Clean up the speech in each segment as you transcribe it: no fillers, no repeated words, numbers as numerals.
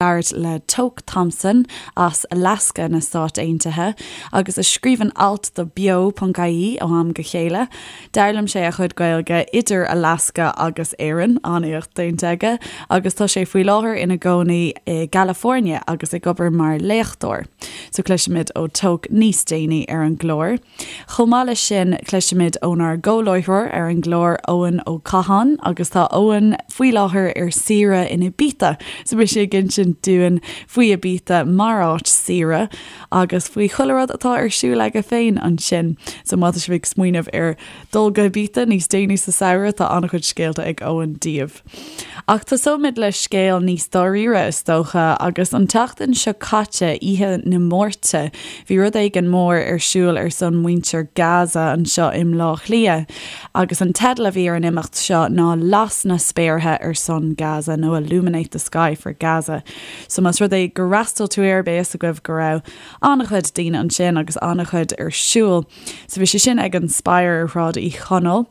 labhairt le Toke Thompson as Alaska na Stáit Aontaithe agus a scríobhann alt do Beo.ie ó am go chéile. D'fhoghlaim sé a chuid Gaeilge idir Alaska agus Éirinn, an-éacht déanta aige, agus tá sé faoi láthair ina gcónaí i gCalifornia agus ag obair mar léachtóir. So cloisfimid ó Toke níos déanaí ar an gclár. Chomh maith leis sin, cloisfimid ónár gcomhláithreoir ar an gclár, Eoin Ó Catháin, agus tá Eoin faoi láthair ar saoire in Ibiza, so beidh sé ag insint dúinn faoi Ibiza mar áit saoire agus faoi chuile rud atá ar siúl aige féin ansin. So má tá sibh ag smaoineamh ar dul go Ibiza níos déanaí sa samhradh, tá an-chuid scéalta ag Eoin daoibh. Ach tosóimid le scéal níos dáiríre, is dócha, agus an tseachtain seo caite, oíche na Máirte, bhí rud éigin mór ar siúl ar son muintir Gaza anseo i mBleá Cliath. Agus an teideal a bhí ar an imeacht seo ná Las na Spéartha ar son Gaza nó Illuminate the Sky for Gaza. So más rud é gur fhreastail tú air, beidh fhios agaibh go raibh an-chuid daoine ansin agus an-chuid ar siúl. So bhí sé sin ag an Spire ar Shráid Uí Chonaill.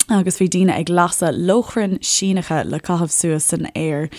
agus bhí daoine ag lasadh lóchrainn Síneacha le caitheamh suas san aer.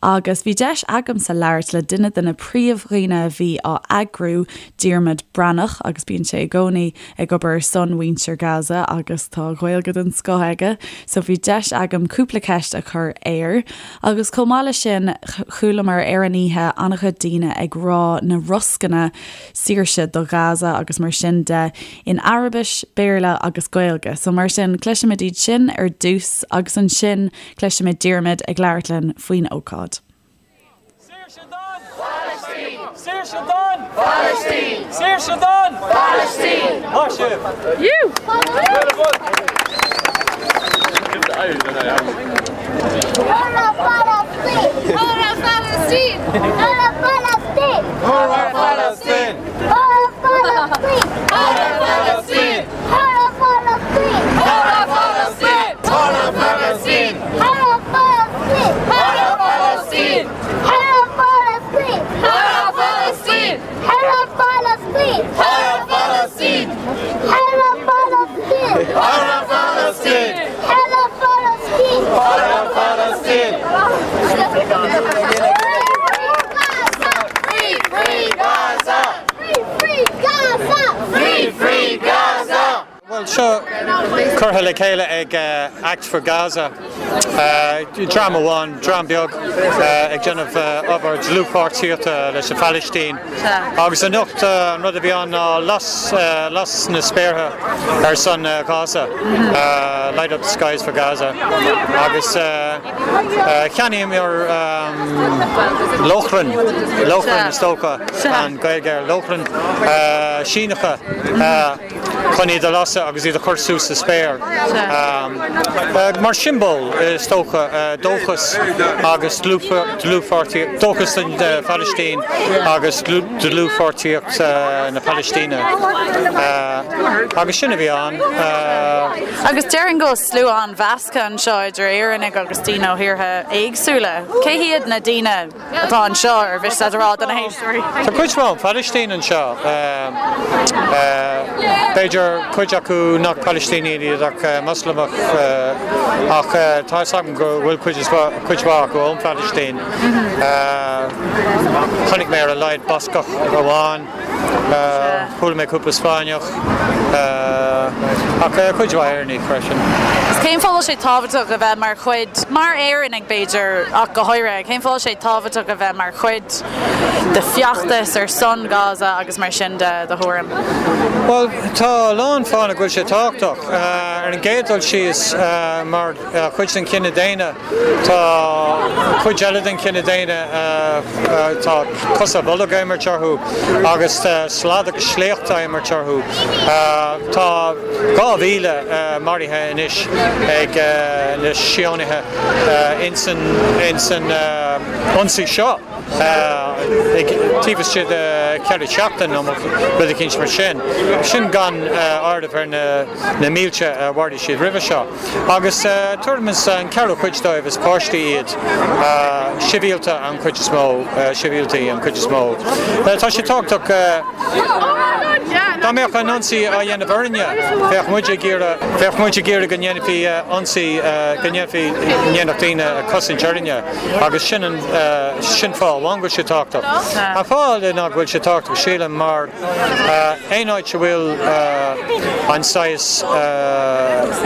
Agus bhí deis agamsa labhairt le duine de na príomhdhaoine a bhí á eagrú, Diarmuid Breathnach, agus bíonn sé i gcónaí ag obair ar son mhuintir Gaza agus tá Gaeilge den scoth aige, so bhí deis agam cúpla ceist a chur air. Agus chomh maith leis sin, chualamar ar an oíche an-chuid daoine ag rá na roscanna saoirse do Ghaza agus mar sin de in Araibis, Béarla agus Gaeilge. So mar sin, cloisfimid iad sin ar dtús agus ansin cloisfimid Diarmuid ag labhairt linn faoin ócáid. Saoirse don Phalaistín! Saoirse don Phalaistín! Saoirse don Phalaistín! Maith sibh! Hurrah Palestine! Hurrah Palestine! Hurrah Palestine! Hurrah Palestine! Hurrah Palestine! Hurrah Palestine! Hurrah Palestine! Hurrah Palestine! Hurrah Palestine! Hurrah Palestine! Hurrah Palestine! Hurrah Palestine! Hurrah Palestine! Hurrah Palestine! Hurrah Palestine! Hurrah Palestine! Hurrah Palestine! Hurrah Palestine! Free, free Gaza! Free, free Gaza! Free, free Gaza! Bhuel, seo curtha le chéile ag Act for Gaza, dream amháin, dream beag ag déanamh obair dlúthpháirtíochta leis an Phalaistín. Agus anocht an rud a bhí ann ná las, las na spéartha ar son Ghaza, Light up the skies for Gaza. Agus cheannaíomar lóchrainn, lóchrainn is dócha an Ghaeilge ar lóchrainn, Síneacha. chun iad a lasadh agus iad a chur suas sa spéir mar siombail, is dócha, dóchas agus dlúthpháirtíocht, dóchas don Phalaistín agus dlúthpháirtíocht na Palaistíne. Agus sin a bhí ann. Agus déarfainn go bhfuil slua an-mheasctha anseo idir Éireannaigh agus daoine ó thíortha éagsúla. Cé hiad na daoine? atá anseo, ar mhiste leat a rá do na héisteoirí? Tá cuid mhaith ón Phalaistín anseo. B'fhéidir cuid acu nach Palaistínigh iad ach Moslamach ach tá fhios agam go bhfuil cuid mhaith acu ón Phalaistín. Chonaic mé ar a laghad Bascach amháin. Chuala mé cúpla Spáinneach, ach cuid mhaith Éireannaigh freisin. Cén fáth a bhfuil sé tábhachtach a bheith mar chuid, mar Éireannaigh b'fhéidir ach go háirithe, cén fáth a bhfuil sé tábhachtach a bheith mar chuid de feachtas ar son Gaza agus mar sin de, do thuairim? Bhuel, tá a lán fáthanna go bhfuil sé tábhachtach. Ar an gcéad dul síos, mar chuid den chine daonna, Tá cuid eile den chine daonna, tá cosa ar bolg á imirt orthu agus slad agus sléacht á imirt orthu. Tá 2,000 maraithe anois ag na Síónaithe ins an ionsaí seo taobh istigh de cheithre seachtain nó rud eicínt mar sin. Sin gan áireamh ar na mílte a mharaigh siad roimhe seo. Agus tuairim is an ceathrú cuid dóibh is páistí iad, sibhialta an chuid is mó, sibhialtaí an chuid is mó. Tá sé tábhachtach. Dá mbeadh an ionsaí á dhéanamh orainne, bheadh muid ag iarraidh, bheadh muid ag iarraidh go ndéanfaí ionsaí, go ndéanfaí, ndéanfadh daoine cosaint orainne agus sin an, sin fáth amháin go bhfuil sé tábhachtach. An fáth eile ná go bhfuil sé tábhachtach, sílim, mar aon áit a bhfuil an saghas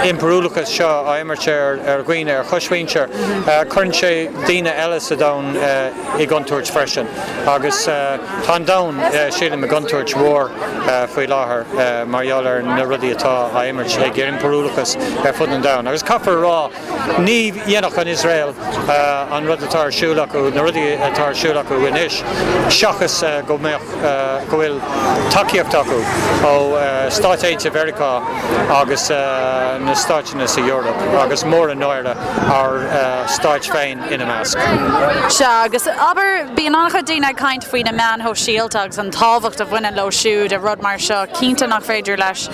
impiriúlachas seo á imirt ar dhaoine, ar choismhuintir, cuireann sé daoine eile sa domhan i gcontúirt freisin. Agus tá an domhan, sílim, i gcontúirt mhór faoi láthair mar gheall ar na rudaí atá á imirt ag impiriúlachas ar fud an domhain. Agus caithfear a rá, ní dhéanfadh an Iosrael an rud atá ar siúl acu, na rudaí atá ar siúl acu anois, seachas go mbeadh, go bhfuil tacaíocht acu ó Stáit Aontaithe Mheiriceá agus na stáiteanna sa Eoraip, agus mór an náire ár stáit féin ina measc. Sea, agus abair, bíonn an-chuid daoine ag caint faoi na meáin shóisialta agus an tábhacht a bhaineann leo siúd i rud mar seo. Cinnte nach féidir leis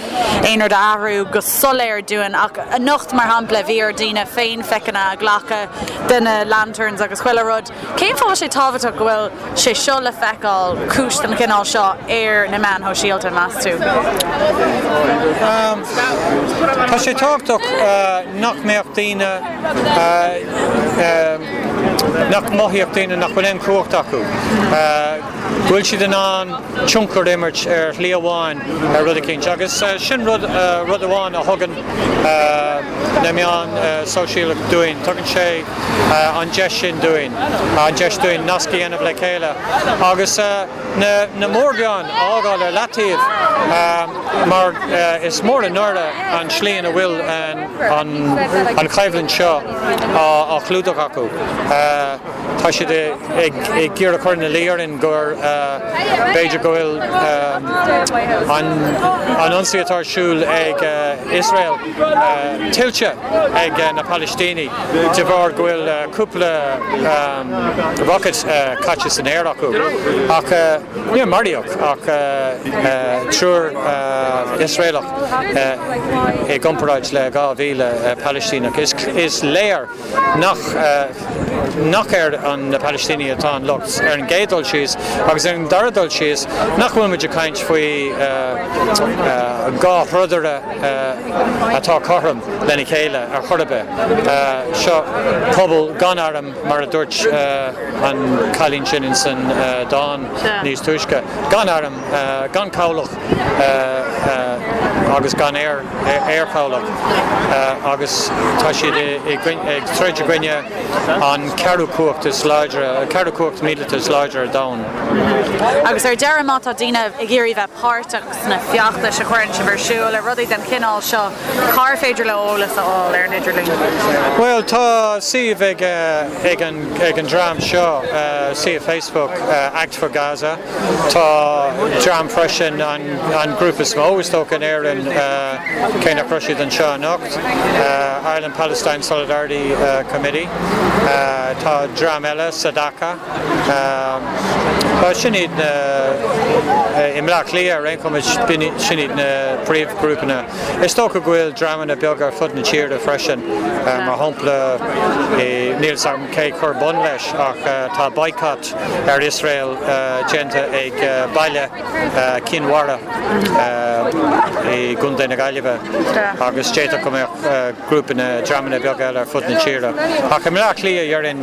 aon rud a athrú go soiléir dúinn ach anocht, mar shampla, bhí ar daoine féinphiceanna a ghlacadh de na lanterns agus chuile rud. Cén fáth a bhfuil sé tábhachtach go bhfuil sé seo le feiceáil, cúis den chineál seo, ar na meáin shóisialta, meas tú? Tá sé tábhachtach nach mbeadh daoine, nach mothaíodh daoine nach bhfuil aon chumhacht acu, go bhfuil siad in ann tionchar a imirt ar shlí amháin ar rud eicínt. Agus sin rud, rud amháin a thugann na meáin sóisialta dúinn, tugann sé an deis sin dúinn, an deis dúinn nasc a dhéanamh le chéile agus na mórmheáin a fhágáil ar leataobh mar is mór an náire an tslí ina bhfuil an choimhlint seo á chlúdach acu. Tá siad ag iarraidh cur ina luí orainn gur b'fhéidir go bhfuil an ionsaí atá ar siúl ag Iosrael tuillte ag na Palaistínigh de bharr go bhfuil cúpla rocket caite san aer acu. Ach níor maraíodh ach triúr Iosraelach i gcomparáid le 2,000 Palaistíneach. Is léir nach nach ar na Palaistínigh atá an locht ar an gcéad dul síos agus ar an dara dul síos nach bhfuil muid ag caint faoi dhá throdaire atá cothrom lena chéile ar chor ar bith. Seo pobal gan arm mar a dúirt an cailín sin ins an dán níos túisce, gan arm, gan cabhlach agus gan aer. aerchabhlach agus tá siad ag troid i gcoinne an ceathrú cumhacht is láidre, an ceathrú cumhacht míleata is láidre ar domhan. Agus ar deireadh, má tá daoine ag iarraidh bheith páirteach sna feachtais a chuireann sibh ar siúl, ar rudaí den chineál seo, cár féidir leo eolas a fháil ar an idirlíon? Bhuel, tá suíomh ag ag an dream seo, suíomh Facebook, Act for Gaza. Tá dream freisin, an grúpa is mó is dócha in Éirinn, cé nach raibh siad anseo anocht, Ireland Palestine Solidarity Committee. Tá dream eile, Sadaka. Sin iad na, i mBleá Cliath ar aon chuma, sin iad na príomhghrúpanna. Is dócha go bhfuil dreamanna beaga ar fud na tíre freisin, mar shampla, níl fhios agam cé chuir bun leis ach tá boycott ar Iosrael déanta ag baile Cinn Mhara i gContae na Gaillimhe agus d'fhéadfadh go mbeadh grúpanna, dreamanna beaga eile ar fud na tíre. Ach i mBleá Cliath, déarfainn,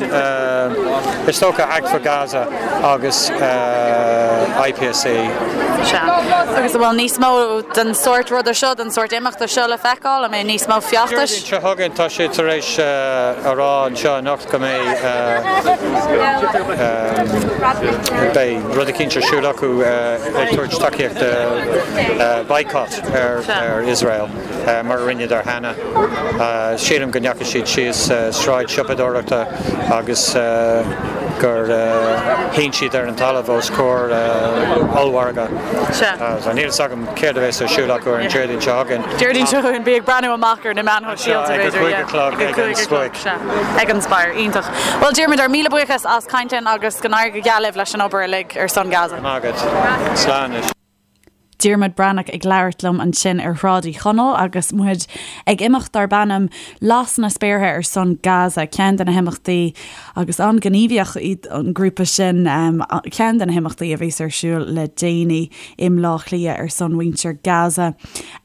is dócha Act for Gaza agus IPSC. Sea. Agus an bhfuil níos mó den sórt ruda seo, den sórt imeachta seo le feiceáil? An mbeidh níos mó feachtais? Déardaoin seo chugainn, tá siad tar éis a rá anseo anocht, go mbeidh beidh rud eicínt ar siúl acu ag tabhairt tacaíocht do boycott ar Iosrael mar a rinneadar cheana. Sílim go ndeachaigh siad síos sráid siopadóireachta agus gur shín siad ar an talamh os comhair ollmhargadh. Níl fhios agam céard a bheas ar siúl acu ar an Déardaoin seo chugainn. Déardaoin seo chugainn, bí ag breathnú amach ar na meáin shóisialta, b'fhéidir. Ag a 5 a chlog ag an Spóic. Sea, ag an Spire. Iontach. Bhuel, Diarmuid, ár míle buíochas as caint linn agus go n-éirí go geal libh leis an obair uilig ar son Gaza. Maith agat. Slán anois. Diarmuid Breathnach ag labhairt liom ansin ar Shráid Uí Chonaill agus muid ag imeacht darb ainm Las na Spéartha ar son Gaza, ceann de na himeachtaí agus an-ghníomhach iad an grúpa sin, ceann de na himeachtaí a bhíos ar siúl le déanaí i mBleá Cliath ar son mhuintir Gaza.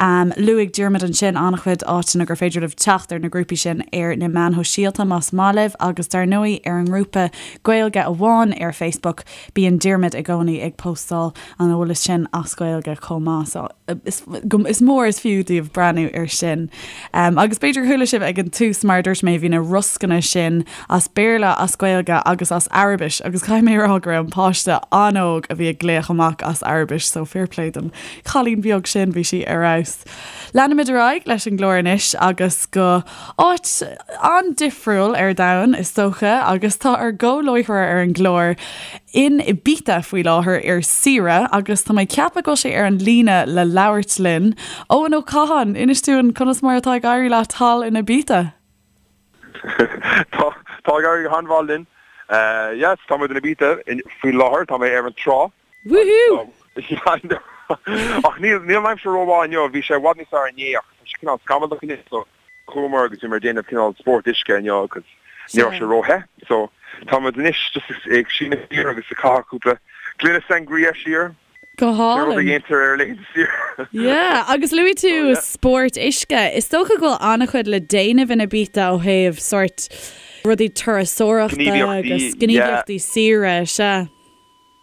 Luaigh Diarmuid ansin an-chuid áiteanna gur féidir libh teacht ar na grúpaí sin ar na meáin shóisialta más maith libh agus dar ndóigh ar an ngrúpa Gaeilge Amháin ar Facebook bíonn Diarmuid i gcónaí ag postáil an eolais sin as Gaeilge chomh maith so is is mór is fiú daoibh breathnú ar sin. Agus b'fhéidir chuala sibh ag an tús mar a dúirt mé bhí na roscanna sin as Béarla, as Gaeilge agus as Araibis agus caithfidh mé a rá go raibh an páiste an-óg a bhí ag glaoch amach as Araibis so fair play don chailín beag sin, bhí sí ar fheabhas. Leanfaimid ar aghaidh leis an gclár anois agus go áit an-difriúil ar domhan is dócha agus tá ár gcomhláithreoir ar an gclár in Ibiza faoi láthair ar saoire agus tá mé ag ceapadh go bhfuil sé ar an líne le labhairt linn. Eoin Ó Catháin, inis dúinn conas mar atá ag éirí leat thall in Ibiza? Tá, tá ag éirí go han-mhaith linn. Yes, tá muid in Ibiza faoi láthair, tá mé ar an trá. Woohoo! Ach níl, níl an aimsir rómhaith inniu, bhí sé i bhfad níos fearr inné ach tá sé cineál scamallach inniu so chuamar agus bhíomar ag déanamh cineál spórt uisce inniu agus ní raibh sé róthe so tá muid anois just ag síneadh siar agus ag caitheamh cúpla gloine sangria siar. Go hálainn. Rud a dhéantar ar laethanta saoire. Yeah, agus luaigh tú spórt uisce. Is dócha go bhfuil an-chuid le déanamh in Ibiza ó thaobh sórt rudaí turasóireachta agus gníomhaíochtaí saoire, sea.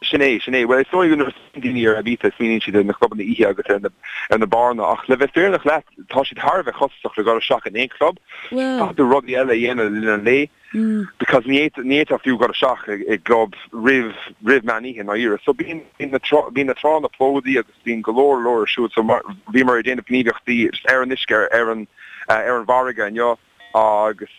Sin é, sin é. Bhuel, is dóigh go nuair a smaoiníonn daoine ar Ibiza, smaoiníonn siad ar na clubanna oíche agus ar na, ar na beáranna, ach le bheith fírinneach leat, tá siad thar a bheith costasach le dhul isteach in aon chlub. Caithfidh tú rudaí eile a dhéanamh le linn an lae, because ní fhéadfá, ní fhéadfá fiú dhul isteach i, i gclub roimh, roimh meán oíche, i ndáiríre. So bíonn, bíonn na trá, bíonn na tránna plódaithe agus bíonn go leor, leor ar siúl. So mar, bhíomar ag déanamh gníomhaíochtaí ar an uisce, ar an, ar an bhfarraige inniu agus,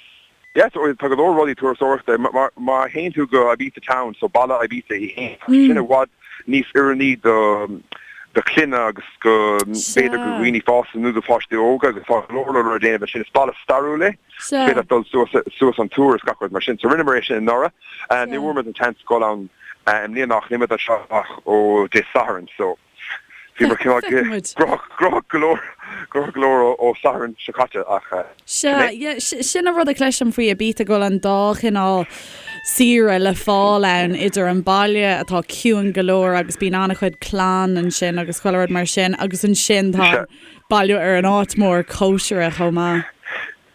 Yeah, so tá go leor rudaí turasóireachta. Má théann tú go Ibiza Town, so baile Ibiza í fhéin, tá sé sin i bhfad níos oiriúnaí do do chlanna agus go b'fhéidir go dhaoine fásta nó do pháistí óga agus tá go leor leor le déanamh ansin. Is baile stairiúil é. Is féidir leat dul suas suas an túr is gach rud mar sin. So rinneamar é sin anuraidh. Ní bhfuair muid an seans dul ann i mbliana ach níl muid anseo ach ó Dé Sathairn so. Bhíomar cineál gnóthach go leor, gnóthach go leor ó Satharn seo caite ach sin é. Sea, sin an rud a chloisim faoi Ibiza go bhfuil an dá chineál saoire le fáil ann, idir an baile atá ciúin go leor agus bíonn an-chuid clann ansin agus chuile rud mar sin agus ansin tá an baile ar an áit mór cóisire chomh maith.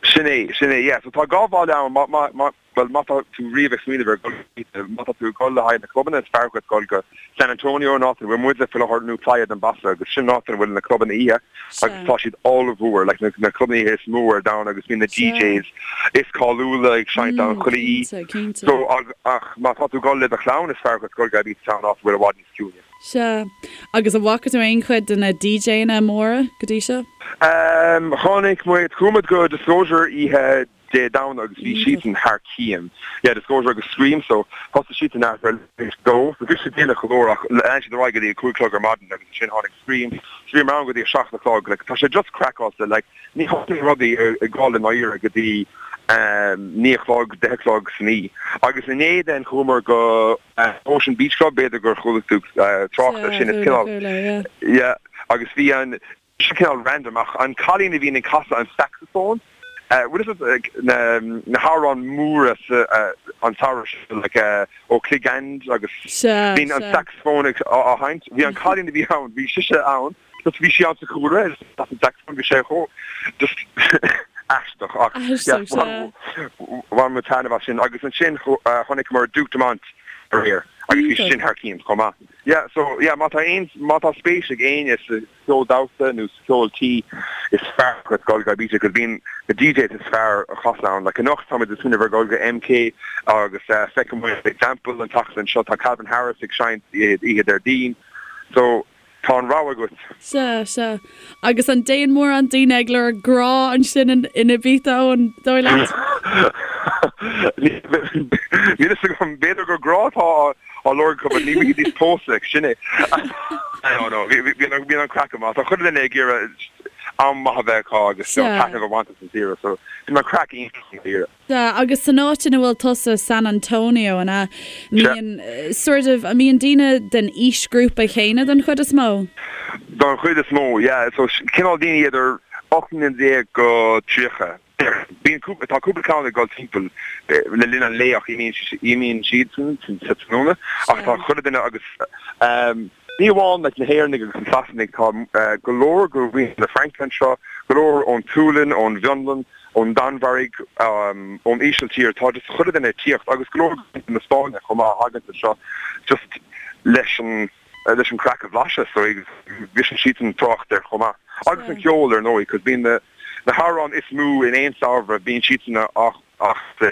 Sin é, sin é, yeah. So tá dhá bhaile ann, má, má, má, Bhuel, má tá tú riamh ag smaoineamh ar dhul go má tá tú ag dul le haghaidh na clubanna, is fearr dhuit dul go San Antonio, an áit ina bhfuil muide faoi láthair, nó Playa d'en Bossa, agus sin an áit ina bhfuil na clubanna oíche, agus tá siad ollmhór, like na na clubanna oíche is mó ar domhan, agus bíonn na DJs is cáiliúla ag seinnt ann chuile oíche. Cinnte, cinnte. So, ach má tá tú ag dul le do chlann, is fearr dhuit dul go Ibiza Town, áit a bhfuil i bhfad níos ciúine. Sea. Agus an bhfaca tú aon chuid de na DJanna móra go dtí seo? Chonaic muid, chuaigh muid go Disclosure oíche Dé Domhnaigh agus bhí siadsan thar cionn. Yeah, Disclosure agus Skream so thosaigh siadsan thart ar leath théis dó so bhí sé déanach go leor ach lean siad ar aghaidh go dtí a 5 chlog ar maidin agus ansin tháinig Skream so bhíomar ann go dtí a 7 a chlog like tá sé just craiceáilte like ní thosaíonn rudaí ag dul i ndáiríre go dtí 9 a chlog, 10 a chlog san oíche. Agus inné then chuamar go Ocean Beach Club b'fhéidir gur chuala tú trácht air sin is cineál yeah agus bhí an Seo cineál random ach an cailín a bhíonn ag casadh an saxophone, bhfuil fhios agat na na hamhráin móra sa an samhradh seo like O Click and agus bíonn an saxophone ag á sheinnt. Bhí an cailín a bhí ann, bhí sise ann, just bhí sí ann sa chúlra agus as an saxophone bhí sé chomh just aisteach ach yeah bhain muid taitneamh as sin agus ansin chonaiceamar Duke Dumont aréir agus bhí sin thar cionn chomh maith. Yeah so yeah má tá aon má tá spéis ag éinne sa cheol damhsa nó sa cheol tí is fearr dhuit dul go Ibiza cos bíonn na DJs is fearr a chasann ann. Like anocht táimid ag smaoineamh ar dhul go MK agus feicfidh muid Example an tseachtain seo tá Calvin Harris ag seinnt oíche Déardaoin so tá an rogha agat. Sea, sea. Agus an dtéann mórán daoine ag lorg grá ansin in Ibiza, an dóigh leat? Níl fhios agam, b'fhéidir gur grá atá á lorg acu but ní bhídís pósta, sin é. No, no, bíonn an craic go maith. Tá chuile dhuine ag iarraidh am maith a bheith acu agus taitneamh a bhaint as an saoire so bíonn an craic iontach i ndáiríre. Sea, agus san áit ina bhfuil tusa, San Antonio, an ea? Mbíonn, sort of, an mbíonn daoine den aoisghrúpa chéanna den chuid is mó? Don chuid is mó, yeah. So cineál daoine idir 18 mbliana go 30. Bíonn cúpla, tá cúpla ceann ag dul timpeall le linn an lae ach imíonn siadsan sa tráthnóna ach tá chuile duine agus ní amháin like na hÉireannaigh agus na Sasanaigh, tá go leor de mhuintir na Fraince anseo, go leor ón tSualainn, ón bhFionlainn, ón Danmhairg, ón Ísiltír, tá just chuile duine ag tíocht agus go leor de mhuintir na Spáinne chomh maith a thagann anseo just leis an leis an craic a bhlaiseadh so briseann siadsan trácht air chomh maith. Agus an ceol ar ndóigh cos bíonn na na hamhráin is mó in aon samhradh bíonn siadsan ach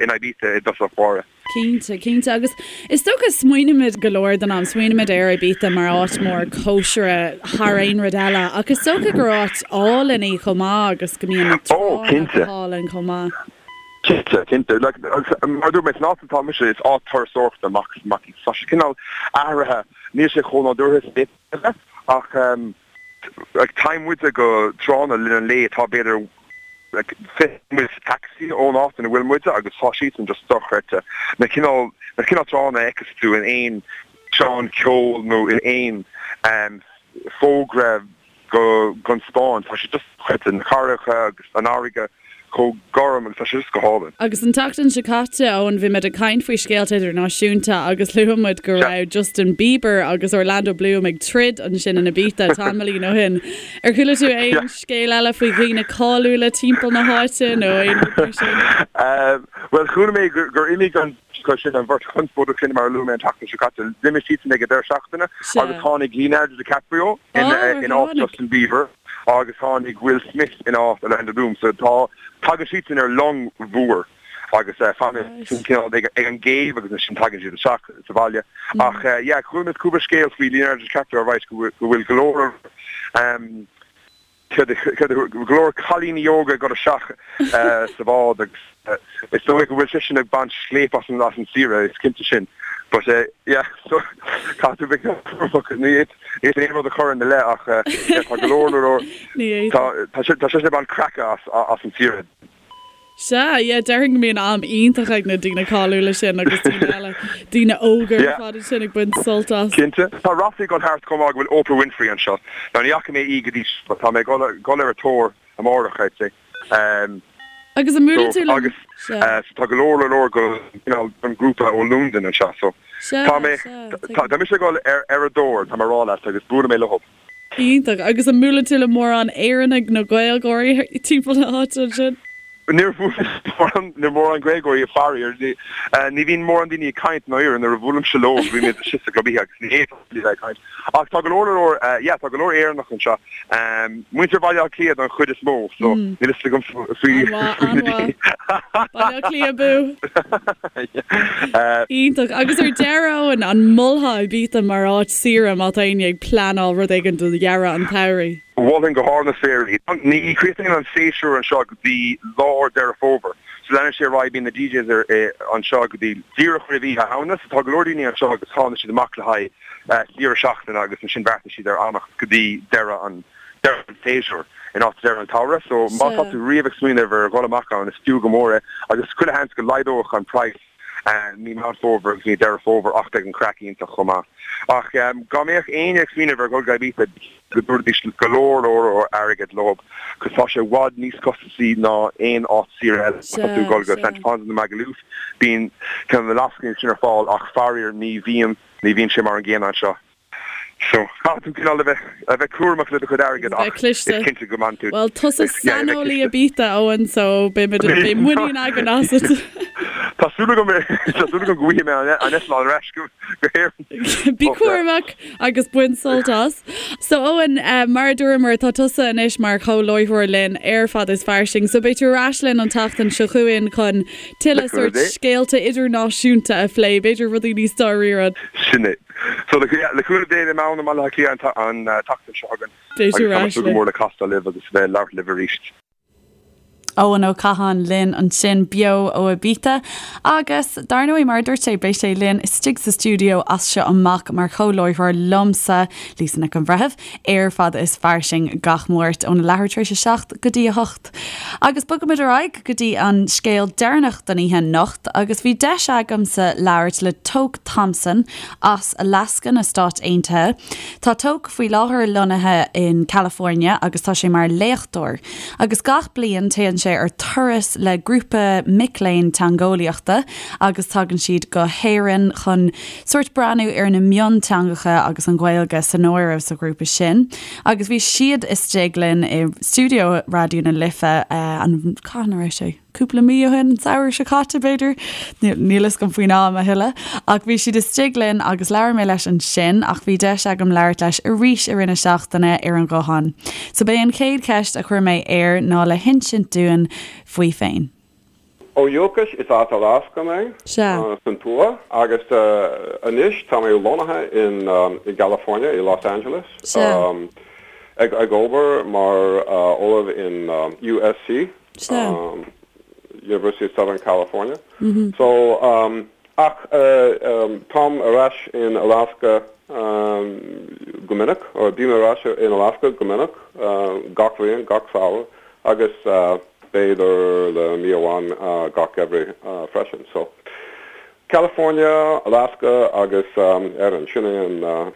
in Ibiza i dtosach báire. Cinnte, cinnte. Agus is dócha smaoinímid go leor den am, smaoinímid ar Ibiza mar áit mór cóisire thar aon rud eile ach is dócha gur áit álainn í chomh maith agus go mbíonn na tránna go hálainn chomh maith. Cinnte, cinnte. Like, mar a dúirt mé, san áit atá mise, is áit turasóireachta amach is amach í. Tá sé cineál athraithe, níl sé chomh nádúrtha is a d'fhéadfadh a bheith, ach like, téann muide go tránna le linn an lae atá b'fhéidir like, 20 nóiméad sa taxi ón áit ina bhfuil muide agus tá siadsan just dochreidte. Na cineál, na cineál tránna a fheiceas tú in aon físeán ceoil nó in aon um, fógra go gon Spáinn. Tá sé just dochreidte, na carraigeacha agus an fharraige chomh gorm agus tá sé just go hálainn. Agus an tseachtain seo caite, Eoin, bhí muid ag caint faoi scéalta idirnáisiúnta agus luaigh muid go raibh Justin Bieber agus Orlando Bloom ag troid ansin in Ibiza tamaillín ó shin. Ar chuala tú aon scéal eile faoi dhaoine cáiliúla timpeall na háite nó aon rud mar sin? Bhuel, chuala mé gur imigh an sin an bheirt chonspóideach sin mar a luaigh mé an tseachtain seo caite. D'imigh siadsan ag an deireadh seachtaine agus tháinig Leonardo DiCaprio in áit Justin Bieber agus tháinig Will Smith in áit Orlando Bloom. So tá, tagann siadsan ar long mhór agus fanann siad cineál ag an gcéibh agus ansin tagann siad isteach sa bhaile. Ach yeah, chuala mé cúpla scéal faoi Leonardo DiCaprio right go bhfuil go leor go leor cailíní óga ag dul isteach sa bhád agus is dóigh go bhfuil seisean ag baint scléip as an as an saoire, is cinnte sin. But yeah, so caithfidh tú bheith cúramach, ní fhéadfainn aon rud a chur ina leith ach yeah, tá go leor leor tá tá seisean ag baint craice as as an saoire. Sea, yeah, déarfainn go mbíonn am iontach ag na daoine cáiliúla sin agus daoine eile, daoine óga ar fad ansin ag baint sult as. Cinnte. Tá ráflaí ag dul thart chomh maith go bhfuil Oprah Winfrey anseo. Now ní fhaca mé í go dtí seo but tá mé ag dul ar a tóir amárach, I'd say. Agus an mbuaileann tú le. Agus so tá go leor leor go cineál an grúpa ó Londain anseo so tá mé tá mise ag dul ar a dtóir, tá mé ag rá leat agus buailfidh mé leo. Iontach. Agus an mbuaileann tú le mórán Éireannaigh nó Gaeilgeoirí timpeall na háite ansin? Níor bhuail mé le mórán Gaeilgeoirí, faraor. Ní bhíonn mórán daoine ag caint ndáiríre nuair a bhuailimse leo, bímid istigh sa gclub oíche agus ní fhéadfá a bheith ag caint. Ach tá go leor leor, yeah, tá go leor Éireannach anseo. Muintir Bhaile Átha Cliath don chuid is mó, so níl fhios agam faoi na daoine. Baile Átha Cliath abú! Iontach. Agus ar deireadh, Eoin, an molfá Ibiza mar áit saoire má tá éinne ag pleanáil rud éigin do dheireadh an tsamhraidh? Mholfainn go hard na spéire í. Ní chríochnaíonn an séasúr anseo go dtí lár Deireadh Fómhair. So leanann sé ar aghaidh, bíonn na DJs anseo go dtí díreach roimh Oíche Shamhna. So tá go leor daoine anseo agus tánn siad amach le haghaidh saoire seachtaine agus ansin beartaíonn siad ar fhanacht go dtí deireadh an deireadh an tséasúir in áit deireadh an tsamhraidh. So má tá tú riamh ag smaoineamh ar dhul amach ann is fiú go mór é agus chuile sheans go laghdódh an praghas mí Meán Fómhair agus mí Deireadh Fómhair ach beidh an craic iontach chomh maith. Ach dá mbeadh éinne ag smaoineamh ar dhul go Ibiza go dtabharfaidís go leor leor airgead leo cos tá sé i bhfad níos costasaí ná aon áit saoire eile. Má tá tú ag dul go Santa Ponsa nó Magaluf bíonn cineál na lascainí sin ar fáil ach faraor ní bhíonn ní bhíonn sé mar an gcéanna anseo. So, caithfidh tú cineál a bheith, a bheith cúramach le do chuid airgid ach is cinnte go mbainfidh tú. Bhuel, tusa saineolaí Ibiza, Eoin, so beidh muid, beidh muinín againn asat. Tá súil agam, tá súil agam go bhfaighidh mé an eitleán ar ais go, go hÉirinn. Bí cúramach agus bain sult as. So, Eoin, mar a dúramar, tá tusa anois mar chomh-láithreoir linn ar Fad is Fairsing, so beidh tú ar ais linn an tseachtain seo chugainn chun tuilleadh sórt scéalta idirnáisiúnta a phlé, b'fhéidir rudaí níos dáiríre. Sin é. So le cúnamh Dé beidh mé ann i mBaile Átha Cliath an tseachtain seo chugainn agus tá mé ag súil go mór le castáil libh agus bheith ag labhairt libh arís. Eoin Ó Catháin linn ansin beo ó Ibiza agus dar ndóigh mar a dúirt sé beidh sé linn istigh sa stiúideo as seo amach mar chomhláithreoir liomsa, Lisa Nic an Bhreithimh, ar Fada is Fairsing gach Máirt óna leathuair tar éis 7 go dtí 8. Agus bogaimid ar aghaidh go dtí an scéal deireanach don oíche anocht agus bhí deis agamsa labhairt le Toke Thompson as Alaska na Stáit Aontaithe. Tá Toke faoi láthair lonnaithe in California agus tá sé mar léachtóir. Agus gach bliain téann sé ar turas le grúpa mic léinn teangeolaíochta agus tagann siad go hÉirinn chun sórt breathnú ar na mionteangacha agus an Ghaeilge san áireamh sa ghrúpa sin. Agus bhí siad istigh linn i stiúideo Raidió na Life an, cathain a raibh sé? cúpla mí ó shin, an samhradh seo caite b'fhéidir, níl fhios agam faoin am a thuilleadh, ach bhí siad istigh linn agus labhair mé leis ansin ach bhí deis agam labhairt leis arís i rith na seachtaine ar an ghuthán. So b'é an chéad cheist a chuir mé air ná le hinsint dúinn faoi féin. Ó dhúchas is as Alaska mé, san tuath, agus anois tá mé lonnaithe in i gCalifornia, i Los Angeles, ag obair mar ollamh in USC. Sea. University of Southern California. So, ach táim ar ais in Alaska go minic, or bím ar ais in Alaska go minic, gach bhliain, gach samhradh, agus b'fhéidir le mí amháin gach geimhreadh freisin. So, California, Alaska agus Éirinn, sin é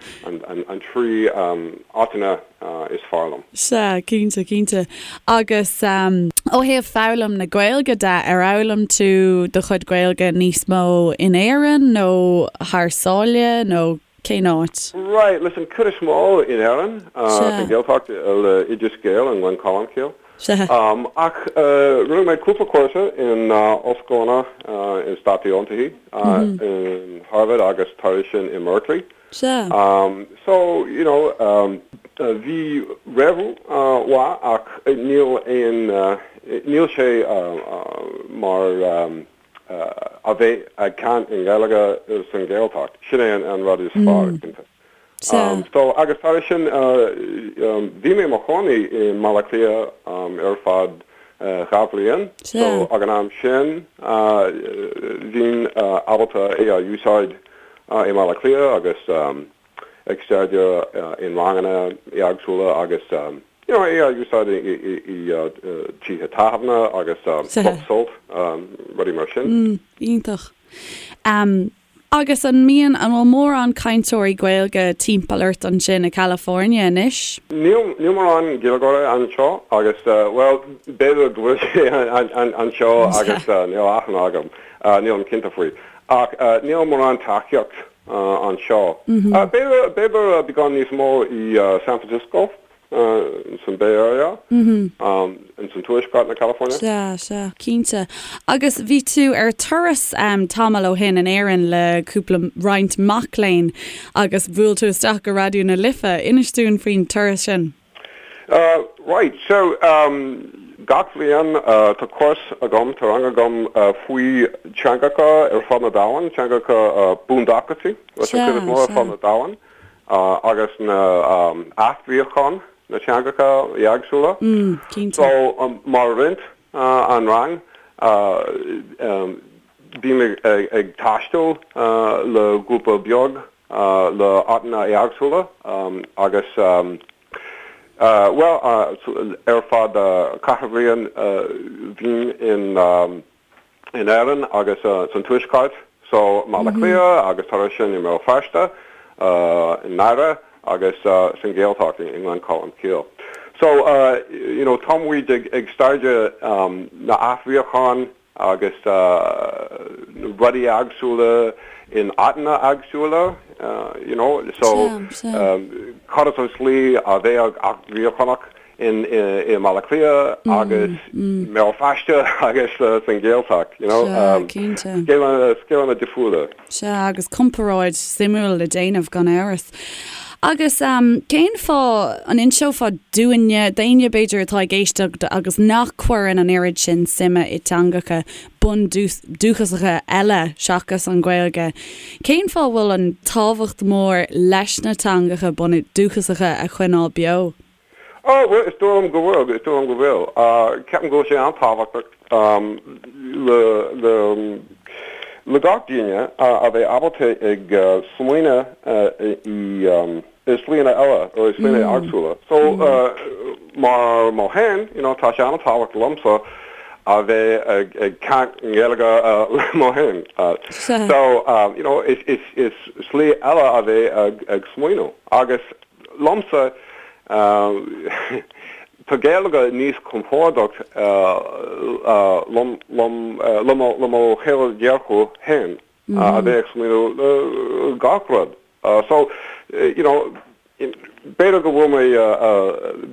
an trí áiteanna is fearr liom. Sea, cinnte, cinnte. Agus ó thaobh foghlaim na Gaeilge de, ar fhoghlaim tú do chuid Gaeilge níos mó in Éirinn nó thar sáile nó cén áit? Right, listen, cuid is mó in Éirinn, sa Ghaeltacht le Oideas Gael i nGleann Cholm Cille. Sea. Ach rinne mé cúpla cúrsa in ollscoileanna i Stáit Aontaithe, in Harvard agus tar éis sin i mBerkeley. Sea. So, you know, bhí réimhiú mhaith ach níl aon, níl sé mar a bheith ag caint i nGaeilge san Ghaeltacht. Sin é an rud is fearr, cinnte. Sea. So, agus tar éis sin, bhí mé i mo chónaí i mBaile Átha Cliath ar feadh 2 bhliain. Sea. So, ag an am sin, bhínn ábalta é a úsáid i mBaile Átha Cliath agus ag staidéar in ranganna éagsúla agus, you know, é a úsáid i tithe tábhairne agus Club Sult, rudaí mar sin. Iontach. Agus an mbíonn, an bhfuil mórán cainteoirí Gaeilge timpeall ort ansin i California anois? Níl, níl mórán Gaeilgeoirí anseo agus, bhuel, b'fhéidir go bhfuil sé anseo agus níl aithne agam, nílim cinnte faoi. Ach níl mórán tacaíocht anseo. B'fhéidir, b'fhéidir beagán níos mó i San Francisco. san Bay Area, in san tuaisceart na California. Sea, sea, cinnte. Agus bhí tú ar turas tamall ó shin in Éirinn le cúpla, roinnt mac léinn agus bhuail tú isteach go Raidió na Life. Inis dúinn faoin turas sin. Right, so gach bhliain tá cúrsa agam, tá rang agam faoi teangacha ar fud na domhain, teangacha bundúchasaí, leis an chuid is mó ar fud na domhain. agus na athbheochan na teangacha éagsúla. So mar roinnt an rang bím ag taisteal le grúpa beag le áiteanna éagsúla agus bhuel ar fad ceithre bhliain bhínn in in Éirinn agus san Tuaisceart, so mBaile Átha Cliath agus tar éis sin i mBéal Feirste, i nDoire agus san Ghaeltacht i nGleann Cholm Cille. So, you know, tá muid ag staidéar na athbheochan agus na rudaí éagsúla in áiteanna éagsúla, you know, so cad is an slí a bheadh athbheochanach in i mBaile Átha Cliath agus mBéal Feirste agus san Ghaeltacht, you know. Sea, cinnte. Scéileanna difriúla. Sea, agus comparáid suimiúil le déanamh, gan amhras. Agus cén fáth, an inseofá dúinne, d'éinne b'fhéidir atá ag éisteacht agus nach cuireann an oiread sin suime i dteangacha bundúchasacha eile seachas an Ghaeilge, cén fáth a bhfuil an tábhacht mór leis na teangacha bundúchasacha a choinneáil beo? Oh, bhuel, is dóigh liom go bhfuil, is dóigh liom go bhfuil. Ceapaim go bhfuil sé an-tábhachtach le, le, le gach duine a bheith ábalta ag smaoineamh i, i slíanna eile, or i slíanna éagsúla. So, mar mo fhéin, you know, tá sé an-tábhachtach liomsa a bheith ag, ag caint i nGaeilge le mo fhéin. So, you know, is, is, is slí eile a bheith ag, ag smaoineamh. Agus liomsa, tá Gaeilge níos compordach liom le mo shaol dearcadh féin a bheith ag smaoineamh le gach rud. So, you know, b'fhéidir go bhfuil mé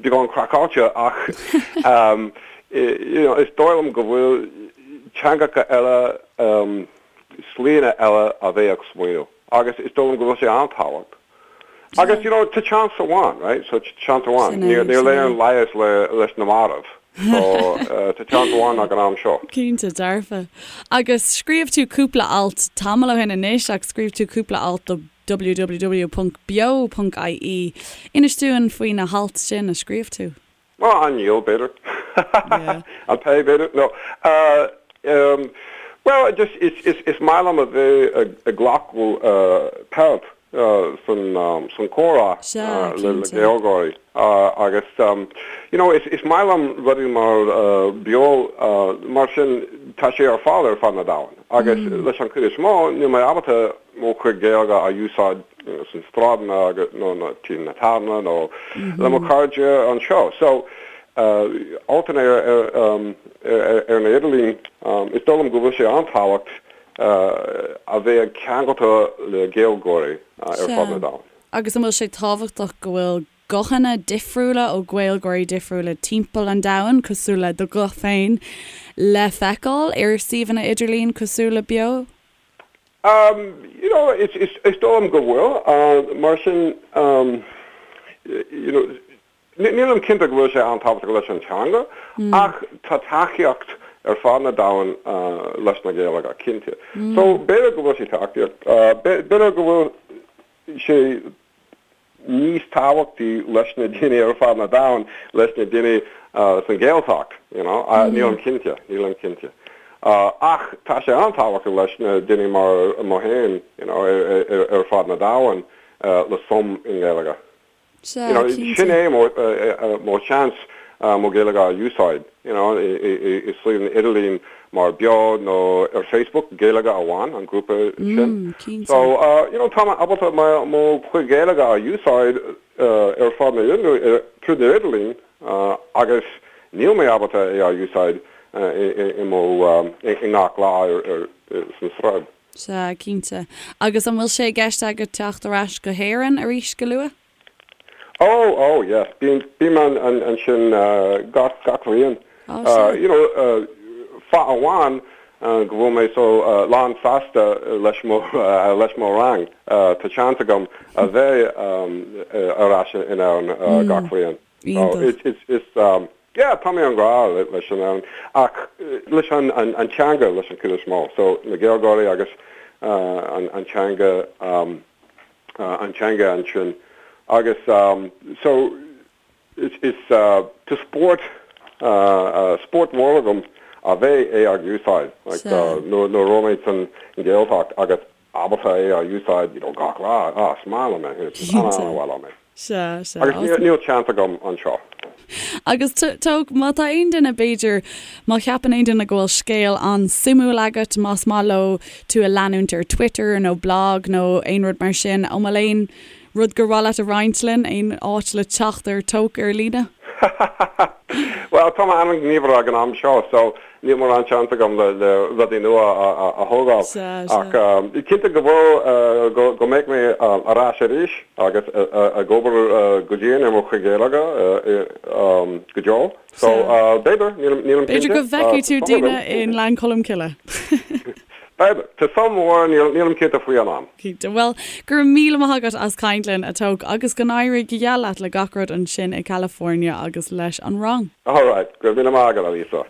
beagán craiceáilte ach you know, is dóigh liom go bhfuil teangacha eile, slíanna eile a bheith ag smaoineamh agus is dóigh liom go bhfuil sé an-tábhacht. Agus, you know, tá chance amháin, right? So, chance amháin. Sin é, Níl sin é. aon leigheas le, leis na mairbh. So, tá chance amháin ag an am seo. Cinnte, dearfa. Agus scríobh tú cúpla alt tamall ó shin anois ach scríobh tú cúpla alt do www.beo.ie. Inis dúinn faoi na hailt sin a scríobh tú. Nó an níl, b'fhéidir. An pé, b'fhéidir. No. Bhuel, just, is, is, is maith liom a bheith ag glacadh páirt san, san comhrá le, le Gaeilgeoirí. Agus, you know, is, is maith liom rudaí mar Beo, mar sin, tá sé ar fáil ar fud na domhain. Agus leis an chuid is mó, níl mé ábalta mo chuid Gaeilge a úsáid sna sráideanna agus nó na tí na tábhairne nó le mo chairde anseo. So, altanna ar ar na idirlíon, is dóigh liom go bhfuil sé an-tábhacht a bheith ceangailte le Gaeilgeoirí ar fud na domhain. Agus an bhfuil sé tábhachtach go bhfuil guthanna difriúla ó Ghaeilgeoirí difriúla timpeall an domhain, cosúil le do ghuth féin, le feiceáil ar suíomhanna idirlín cosúil le Beo? You know, is, is, is dóigh liom go bhfuil. Mar sin, you know, nílim cinnte go bhfuil sé an-tábhachtach leis an teanga, ach tá tacaíocht ar fud na domhain leis na Gaeilge, cinnte. So, b'fhéidir go bhfuil sé tacaíocht, b'fhéidir go bhfuil sé níos tábhachtaí leis na daoine ar fud na domhain, leis na daoine san Ghaeltacht, you know, nílim cinnte, nílim cinnte. Ach tá sé an-tábhachtach leis na daoine mar mo fhéin, you know, ar fud na domhain le suim i nGaeilge. Sea, You know, cinnte. sin é mo, mo sheans mo Ghaeilge a úsáid, you know, i suíomh idirlín mar Beo nó ar Facebook, Gaeilge Amháin, an grúpa sin. Mm, cinnte. So, you know, tá mé ábalta mo, mo chuid Gaeilge a úsáid ar fud na, tríd na idirlín agus níl mé ábalta é a úsáid i mo, i ngach lá ar, ar, san sráid. Sea, cinnte. Agus an bhfuil sé i gceist agat teacht ar ais go hÉirinn arís go luath? Oh, oh, yeah. Bím, bím an, an, ansin gach, gach bhliain. Oh, sea. You know, fáth amháin go bhfuil mé so lán sásta leis mo, leis mo rang, tá seans agam a bheith ar ais in Éirinn gach bhliain. Iontach. It's, it's, it's, yeah, tá mé an-ghrá leis an Éirinn ach leis an, an, an teanga leis an chuid is mó. So, na Gaeilgeoirí agus an, an teanga, an teanga ansin agus so is, is tá spórt, spórt mór agam a bheith é ag úsáid like nuair a raibh mé san Ghaeltacht agus ábalta é a úsáid you know gach lá, ah is maith liom é, is an-an-mhaith liom é. Sea, sea. Agus níl seans agam anseo. Agus Tóg, má tá aon duine, b'fhéidir, má cheapann aon duine go bhfuil scéal an-suimiúil agat, más maith leo tú a leanúint ar Twitter nó blog nó aon rud mar sin, an bhfuil aon rud gur mhaith leat a roinnt linn, aon áit le teacht ar Tóg ar líne? Bhuel, tá mé an-ghníomhach ag an am seo, so níl mórán seans agam le rudaí nua a thógáil. Ach cinnte go bhfuil, go mbeidh mé ar ais arís agus ag obair go dian ar mo chuid Gaeilge go deo. So, b'fhéidir, nílim cinnte. B'fhéidir go bhfeicfidh tú daoine i nGleann Cholm Cille. B'fhéidir. Tá suim mhór, nílim cinnte faoi an am. Cinnte. Bhuel, go raibh míle maith agat as caint linn, a Tóg, agus go n-éirí go geal leat le gach rud ansin i California agus leis an rang. Alright, go raibh míle maith agat, a Lisa.